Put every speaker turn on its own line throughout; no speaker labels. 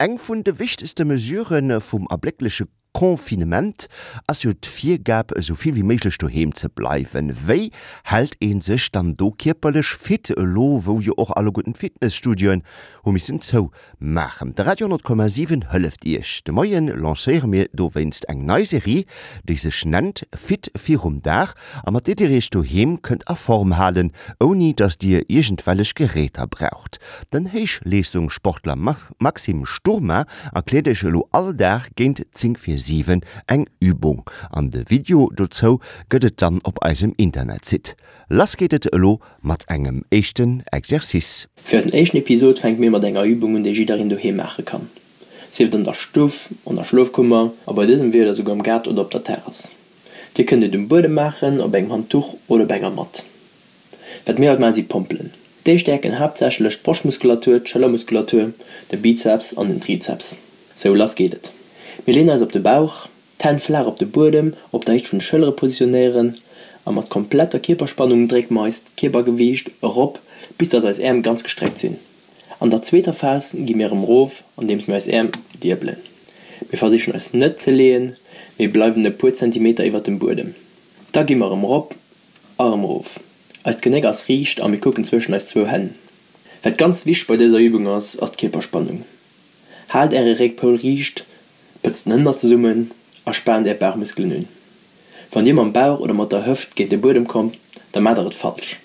Eng vun de wichtegste Mesurë vum erbléckleche Confinement ass jo d'Virgab, esou vill wéi méiglech doheem ze bleiwen. Wéi hält ee sech dann do kierperlech fit, elo wou jo och alleguerten d'Fitnesstudioen hu missen zou maachen? De Radio 10,7 hëlleft Iech. De Moie lancéiere mir dowéinst eng nei Serie, déi sech nennt Fit virum Dag a mat där Dir Iech doheem kënnt a Form halen, ouni datt Dir iergendwellech Geräter braucht. Den Héichleeschtungssportler Maxime Sturma erkläert Iech elo all Dag géint 10 vir 7 eng Übung an de Video dozou gëtt et dann op eisem Internetsite. Lass geet et elo mat engem éischten Exercice.
Fir eisen éischten Episod fänke mir mat enger Übung un déi jiddereen doheem maache kann. Sief et an der Stuff, an der Schlofkummer a bei dësem Wieder souguer am Gaart oder op der Terrass. Dir kënnt et um Buedem maachen, op engem Handduch oder op enger Matt. Wat mir haut maachen si Pompelen. Déi stäerken haaptsächlech d'Broschtmuskulatur, d'Schëllermuskulatur, de Bizeps an den Trizeps. Sou, lass geet et. Mir leeën eis op de Bauch, d'Hänn flaach op de Buedem op der Héicht vun de Schëllere positionéieren a mat kompletter Kierperspannung drécke mer eist Kierpergewiicht erop bis dass eis Äerm ganz gestreckt sinn. An der zweeter Phas gi mir erëm erof andeems mir eis Äerm diebelen. Mir versichen eis net ze leeën, mee bleiwen e puer Zentimeter iwwert dem Buedem. Da gi mer erëm erop a erëm erof. Eist Genéck ass riicht a mir kucken zwëschen eis zwou Hänn. Wat ganz wichteg bei dëser Übung ass, ass d'Kierperspannung. Haalt äre Réckpoul riicht, pëtzt den Hënner zesummen a spaant är Bauchmuskelen un. Wann dir mam Bauch oder mat der Hëft géint de Buedem kommt, da maacht der et falsch.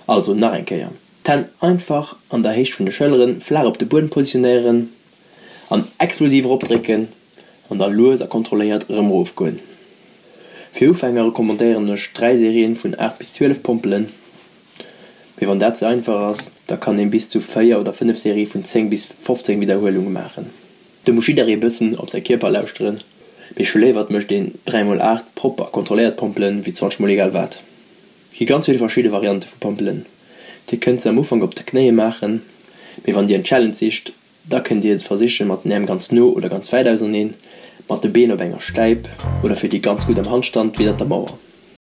Also nach eng Kéier, d'Hänn einfach an der Héicht vun de Schëlleren flaach op de Buedem positionéieren an explosiv eropdrécken an da lues a kontrolléiert erëm erofgoen. Fir Ufänger recommandéieren ech 3 Serien vun 8 bis 12 Pompelen. Mee wann dat ze einfach ass, da kann een bis zu 4 oder 5 Serie vun 10 bis 15 Widderhuelunge maachen. Do muss jidderee bëssen op säi Kierper lauschteren, mee ech hu léiwer et mécht een 3 mol 8 propper a kontrolléiert Pompelen wéi 20 mol egal wat. Et gi ganz vill verschidde Variante vu Pompelen. Dir kënnt se am Ufank op de Knéie maachen, mee wann dir en Challenge sicht, Da kënnt dir et versichen mat den Äerm ganz no oder ganz wäit auserneen, mat de Been op enger Stäip oder fir déi ganz gutt am Handstand widdert der Mauer.